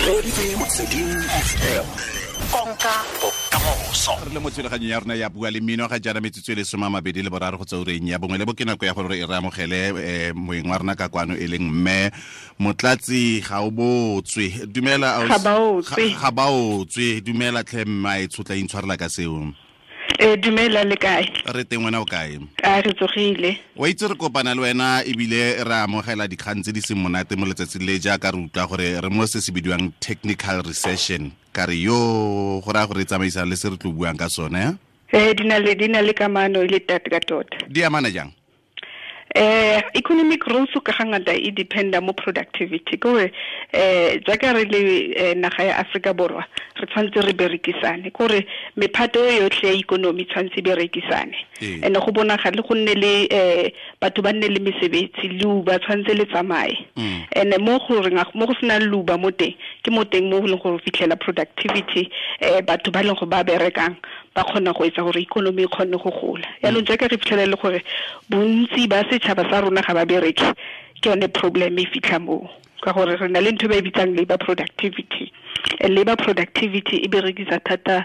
Reditse Motsweding FM. Konka bokamoso. Re le mo thulaganyong ya rona ya Bua le Mmino ga jaana, metsotso e le 23 go tsa ureng ya bongwe le bo ke nako ya gore re amogele moeng wa rona ka kwano, e leng mme Motlatsi Gaobotswe. Dumela. Gabaotswe. Gabaotswe, dumela tlhe mma, e tshotla intshwarela ka seo. Dumela, le kae? Re teng, wena o kae? A re tsogile. Wa itse re kopana le wena ebile re amogela dikgang tse di seng monate mo letsatsing le, jaaka re utlwa gore re mo se se bidiwang technical recession. Ka re yo go raya gore e tsamaisang le se re tlo buang ka sone. Di na le kamano e le tate ka tota. Di amana jang? Economic growth ka ga ngata e dependa mo productivity, ke gore jaaka re le naga ya Africa Borwa, re tshwanetse re berekisane, ke gore mephato e yotlhe ya economy tshwanetse e berekisane and go bonagale go nne le batho ba nne le mesebetsi, leuba tshwanetse le tsamaye. And mo gore mo go senang leuba mo teng, ke mo teng mo go leng gore o fitlhela productivity, batho ba leng go ba berekang ba kgona go etsa gore economy e kgone go gola. Yaanong jaaka re fitlhela le gore bontsi ba setšhaba sa rona ga ba bereke, ke yone problem e fitlha moo, ka gore re na le ntho e ba e bitsang labor productivity. Labor productivity e berekisa thata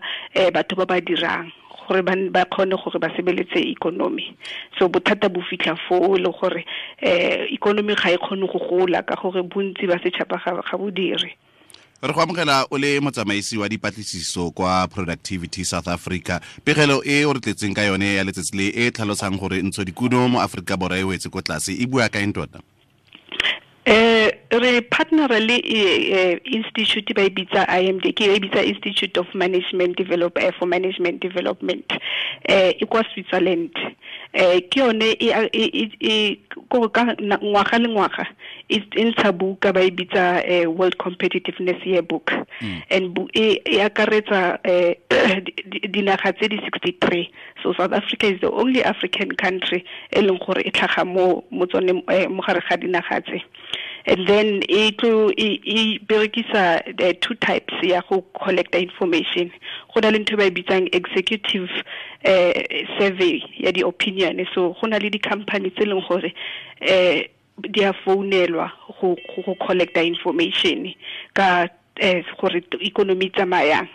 batho ba ba dirang gore ba kgone gore ba sebeletse economy. So bothata bo fitlha foo, e le gore economy ga e kgone go gola ka gore bontsi ba setšhaba ga bo dire. Re go amogela o le motsamaisi wa dipatlisiso kwa Productivity South Africa. Pegelo e o re tletseng ka yone ya letsatsi le, e tlhalosang gore ntsho dikuno mo Aforika Borwa e wetse ko tlase, e bua ka eng tota? Re partner le institute ba e bitsa IMD, ke e bitsa Institute of Management Develop for Management Development, e kwa Switzerland. Ke yone e ko ka ngwaga le ngwaga e ntsha buka ba e bitsa World Competitiveness Yearbook, and e akaretsa dinaga tse di 63. So South Africa is the only African country e leng gore e tlhaga mo tsone, mo gare ga dinaga tse. And then e tlo e berekisa the two types ya go collecta information. Go na le ntho e ba e bitsang executive survey ya di-opinion. So go na le di-company tse leng gore di a founelwa go collecta information ka gore economy e tsamayang,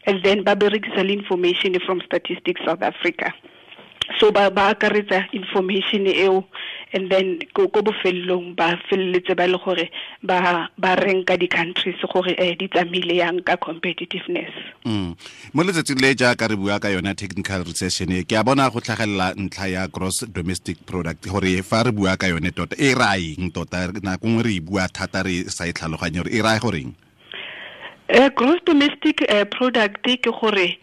and then ba berekisa le information from Statistics South Africa. So ba akaretsa information eo, and then ko bofelelong ba feleletse ba le gore ba ranka di-countries gore di tsamaile yang ka competitiveness. Mo letsatsing le, jaaka re bua ka yona technical recession e, ke a bona go tlhagelela ntlha ya gross domestic product, gore fa re bua ka yone tota e raya eng tota? Nako nngwe re e bua thata re sa e tlhaloganye gore e raya goreng. Gross domestic product ke gore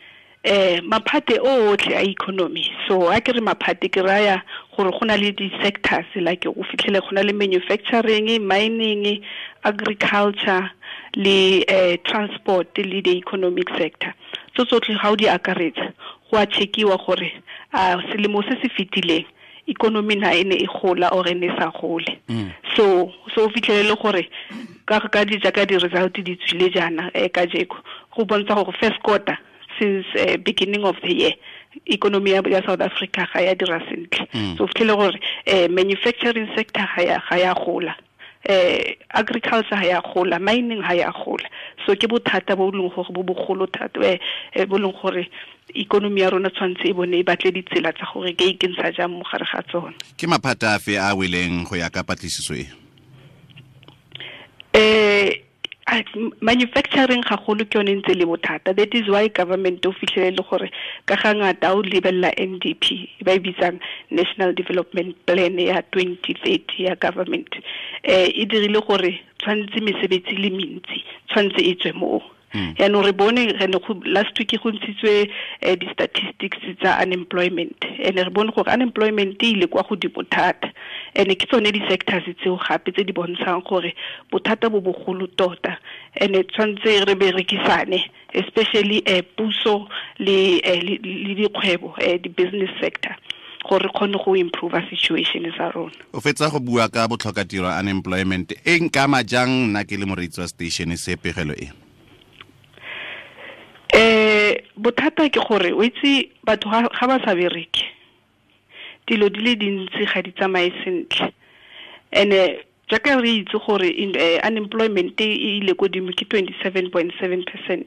maphate otlhe a economy. So a ke re maphate, ke raya gore go na le di-sectors, like o fitlhele go na le manufacturing, mining, agriculture le transport le the economic sector. So tsotlhe ga o di akaretsa, go a checkiwa gore a selemo se se fetileng economy na e ne e gola or e ne e sa gole. So o fitlhelele gore ka di jaaka di-result di tswile jaana kajeko, go bontsha gore first quarter since beginning of the year economy ya South Africa ga ya dira sentle. So o fitlhele gore manufacturing sector ga ya gola, agriculture ga ya gola, mining ga ya gola. So ke bothata bo leng gore bo bogolo thata, bo leng gore economy ya rona tshwanetse e bone e batle ditsela tsa gore ke ikentsha jang mo gare ga tsona. Ke maphata afe a weleng go ya ka patlisiso e? Manufacturing gagolo ke yone ntse le bothata. That is why government, o fitlhele le gore ka ga ngata o lebelela NDP, ba e bitsang National Development Plan ya 2030 ya government, e dirile gore tshwanetse mesebetsi le mentsi tshwanetse e tswe moo. Yaanong re bone re ne go last week go ntshitswe di-statistics tsa unemployment, and re bone gore unemployment e ile kwa godimo thata, and ke tsone di-sectors tseo gape tse di bontshang gore bothata bo bogolo tota, and tshwanetse re berekisane, especially puso le dikgwebo, di-business sector, gore re kgone go improve situation sa rona. O fetsa go bua ka botlhokatiro, unemployment. E nkama jang nna ke le moreetsi wa station se, pegelo e? Bothata ke gore o itse batho ga ba sa bereke, dilo di le dintsi ga di tsamaye sentle, and Jaaka re itse gore unemployment e ile godimo ke 27.7%.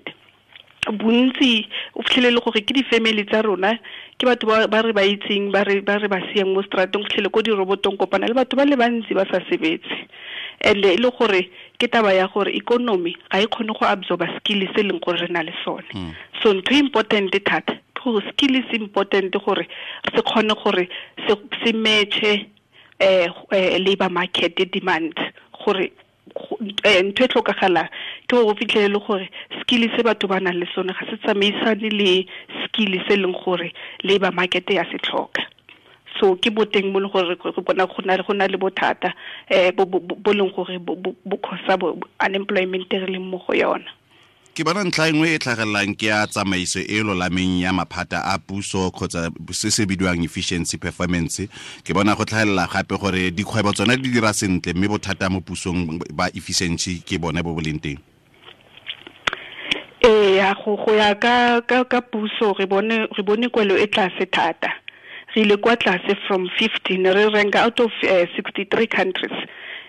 Bontsi o fitlhelele gore ke di-family tsa rona, ke batho ba re ba itseng, ba re ba siang mo strateng, o fitlhele ko dirobotong kopana le batho ba le bantsi ba sa sebetse. And e le gore ke taba ya gore economy ga e kgone go absorba skill se leng gore re na le sone. So ntho important thata ke gore skill is important gore se kgone gore se matche labor market demand, gore ntho e tlhokagalang ke gore o fitlhelele gore skill se batho ba nang le sone ga se tsamaisane le skill se leng gore labor market ya se tlhoka. So ke boteng mo le gore re bona go na le bothata bo leng gore bo cause unemployment re leng mo go yona. Ke bona ntlha engwe e tlhagelelang ke ya tsamaiso e lolameng ya maphata a puso kgotsa se se bidiwang efficiency performance. Ke bona go tlhagelela gape gore dikgwebo tsone di dira sentle mme bothata mo pusong ba efficiency ke bone bo bo leng teng. Ee, go ya ka puso re bone kwelo e tlase thata. Re ile kwa tlase from 15, re rank out of 63 countries,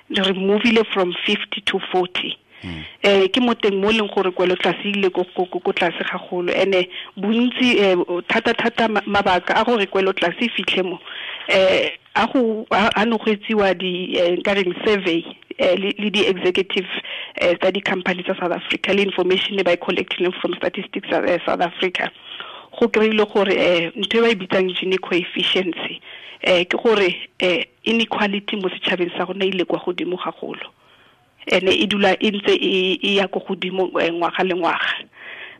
re movile from 50 to 40. Ke mo teng mo leng gore kwelo tlase ile ko tlase gagolo. Ene bontsi thata mabaka a gore kwelo tlase fitlhe mo a go a no go etsiwa di nka reng survey le di executive tsa di company tsa South Africa le information e ba e collecting from Statistics South Africa. Go kry-ile gore ntho e ba e bitsang Gini coefficiency ke gore inequality mo setšhabeng sa rona ile kwa godimo gagolo. Ene e dula e ntse e ya ko godimo ngwaga le ngwaga.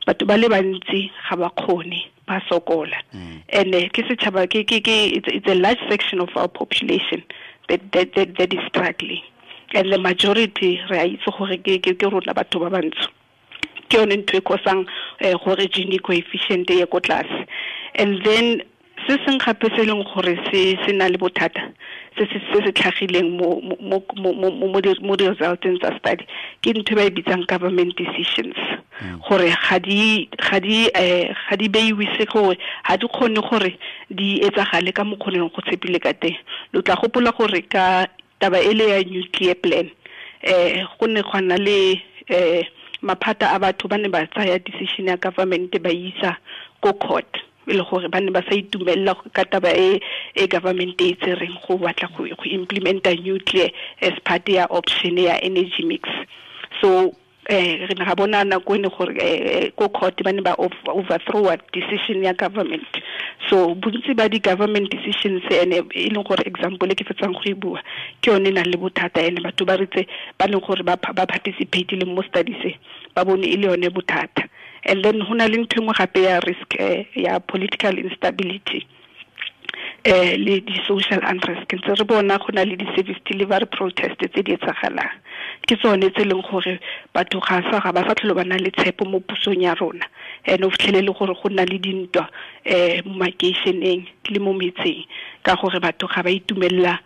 Batho ba le bantsi ga ba kgone, ba sokola. Ene ke setšhaba ke it's a large section of our population that is struggling. And the majority re a itse gore ke rona batho ba bantsho. Ke yone ntho e kosang gore Gini coefficient e ye ko tlase. And then se seng gape se leng gore se na le bothata se se tlhagileng mo di-resulteng tsa study ke ntho e ba e bitsang government decisions, gore ga di beiwe se gore ga di kgone gore di etsagale ka mokgoneng go tshepile ka teng. Lo tla gopola gore ka taba e le ya nuclear plan go ne gwa nna le maphata a batho ba ne ba tsaya decision ya government ba isa ko court, e le gore ba ne ba sa itumelela ka taba e government e tsereng go batla go implementa nuclear as part ya option ya energy mix. So re ne ga bona nako ene gore ko court ba ne ba overthrow decision ya government. So bontsi ba di-government decisions ene e leng gore example e ke fetsang go e bua ke yone e nang le bothata, ene batho ba ritse ba leng gore ba participate le mo studies ba bone e le yone bothata. And then ho na le ntho engwe gape ya risk ya political instability le di-social unrest. Ke ntse re bona go na le di-service delivery protest tse di etsagalang, ke tsone tse leng gore batho ga ba sa tlhole ba na le tshepo mo pusong ya rona. And o fitlhelele gore go nna le dintwa mo makeišeneng le mo metseng ka gore batho ga ba itumelela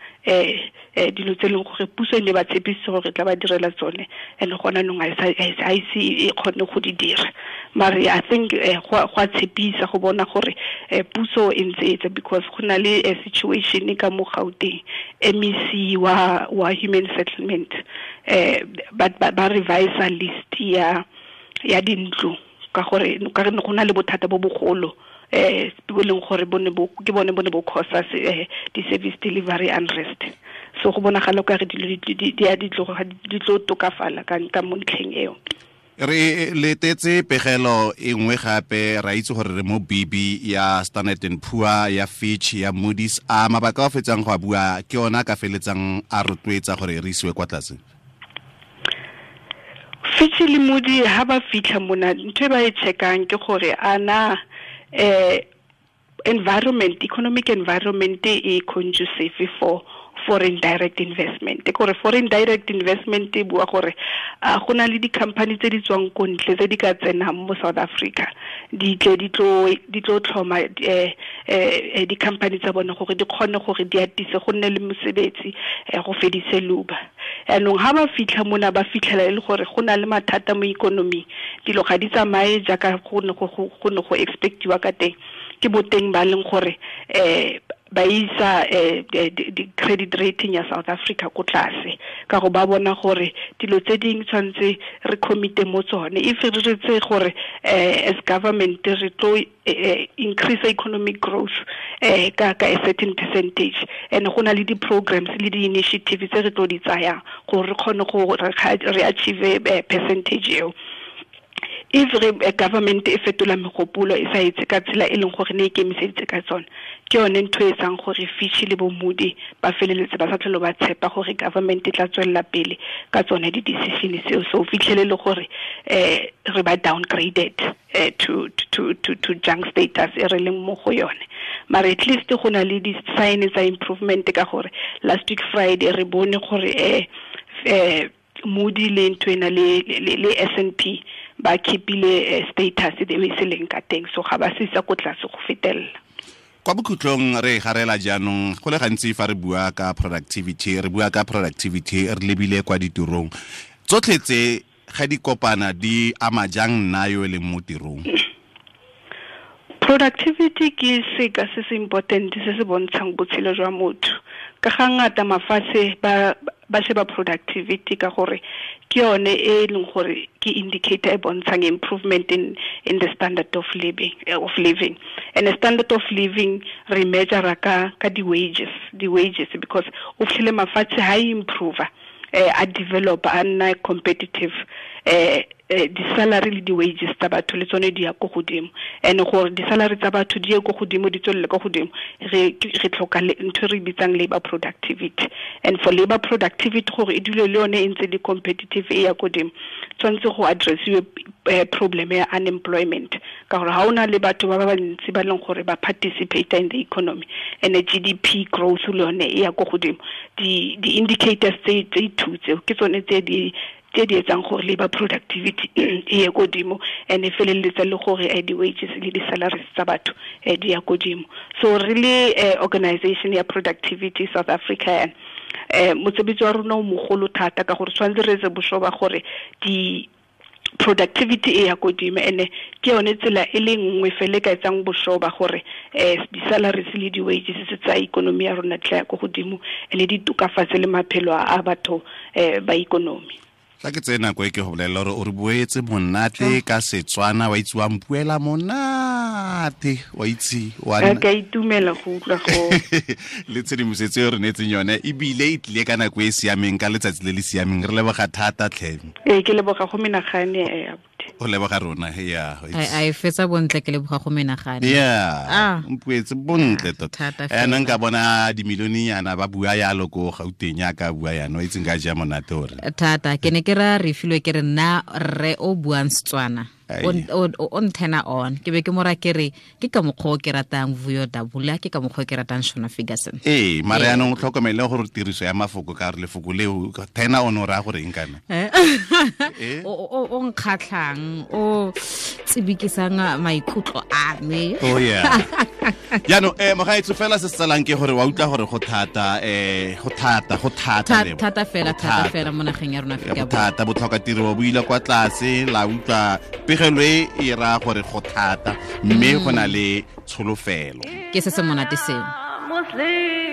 dilo tse leng gore puso e ne ba tshepise gore tla ba direla tsone, and gona nong ga ise e kgone go di dira. Mare I think go a tshepisa go bona gore puso e ntse etsa, because go na le situation ka mo Gauteng, MEC wa human settlement ba revise list ya dintlo ka gore ka re go na le bothata bo bogolo bo leng gore ke bone bo cause di-service delivery unrest. So go bonagala ka re dilo di tlo tokafala ka mo ntlheng eo. Re letetse pegelo e nngwe gape, ra itse gore re mo BB ya Standard and Poor, ya Fitch, ya Moody's. A mabaka a fetsang go a bua ke ona ka feletsang a rotloetsa gore re isiwe kwa tlase? Fitch le Moody ha ba fitlha mona, ntho e ba e checkang ke gore ana environment, economic environment e conducive for foreign direct investment. Gore foreign direct investment e bua gore go na le di-company tse di tswang ko ntle tse di ka tsenang mo South Africa, di tle di tlo tlhoma di-company tsa bone gore di kgone gore di atise go nne le mosebetsi, go fedise luba. Anong ha ba fitlha mona ba fitlhela e le gore go na le mathata mo economy, dilo ga di tsamaye jaaka go ne go expectiwa ka teng. Ke boteng ba leng gore Ba isa di credit rating ya South Africa ko tlase ka go ba bona gore dilo tse ding tshwantse re commit mo tsone. If re re tse gore as government re tlo increase economic growth ka a certain percentage, and go na le di programs le di initiatives tse re tlo di tsayang gore re kgone go re achieve percentage eo. If re government e fetola megopolo e sa etse ka tsela e leng gore ne e ikemiseditse ka tsone, ke yone ntho e etsang gore Fitch le bo Moody ba feleletse ba sa tlhole ba tshepa gore government e tla tswelela pele ka tsone di-decision seo. So fitlhele le gore re ba downgraded to junk status e re leng mo go yone. Mara at least go na le di-sign tsa improvement ka gore last week Friday re bone gore Moody le ntho ena le S&P ba keepile status e e seleng ka teng, so ga ba se isa ko tlase go fetelela. Kwa bokhutlong re garela jaanong, go le gantsi fa re bua ka productivity, re bua ka productivity re lebile kwa ditirong tsotlhe tse ga di kopana di ama jang nna yo e leng mo tirong? Productivity ke seka se se important se se bontshang botshelo jwa motho. Ka ga ngata mafatshe ba sheba productivity ka gore ke yone e leng gore ke indicator e bontshang improvement in the standard of living. And the standard of living re measure ka di wages because o fitlhele mafatshe ha improve, a develop a nna competitive, di-salary le di-wages tsa batho le tsone di ya ko godimo. And gore di-salary tsa batho di ye ko godimo, di tswelele ko godimo, re tlhoka ntho re bitsang labor productivity. And for labor productivity gore e dule le yone e ntse le competitive e ya godimo, tshwanetse go addressiwe problem ya unemployment, ka gore ha o na le batho ba bantsi ba leng gore ba participate in the economy, and the GDP growth le yone e ya ko godimo. Di-indicators tse two tseo ke tsone tse di etsang gore labor productivity e ye godimo, and e feleletsa le gore di-wages le di-salaries tsa batho di ya godimo. So really organization ya Productivity South Africa, mosebetsi wa rona o mogolo thata ka gore tshwanetse re etse boshoba gore di productivity e ya godimo, and ke yone tsela e le nngwe fela e ka etsang boshoba gore di-salaries le di-wages tsa ikonomi ya rona tla ya ko godimo, and di tokafatse le maphelo a batho ba ikonomi. Tla ke tseye nako e ke go bolelela gore o re boetse monate ka Setswana, wa itse wa mpuela monate, wa itse wa ka itumela go utlwa go le tshedimosetso e re neetseng yone, ebile e tlile ka nako e e siameng, ka letsatsi le le siameng. Re leboga thata tlhe. Ee, ke leboga go menagane. O leboga rona, ya. A e fetsa bontle, ke leboga go menagane. Yeah, mpuetse bontle tota. Ene nka bona dimilione-nyana ba bua yalo ko Gauteng ya ka bua yana, o itse nka ja monate ore. Thata, ke ne ke ra re filwe ke re nna rre o buang Setswana. O nthena on. Ke be ke mora ke re ke ka mokgwa o ke ratang Vuyo Dabula, ke ka mokgwa o ke ratang Shona Ferguson. Ee, mara yaanong o tlhokomele gore tiriso ya mafoko ka gore lefoko leo thena on o raya gore eng kana? O nkgatlhang, o tsibikisang maikutlo a me. Oh yeah. Jaanong mogaetso fela se se tsalang ke gore wa utlwa gore go thata, go thata, go thata thata fela, thata fela mo nageng ya rona Afrika Borwa. Thata, botlhoka tiro bo ile kwa tlase, la utlwa pegelo e e raya gore go thata, mme go na le tsholofelo. Ke se se monate seo. Muslim.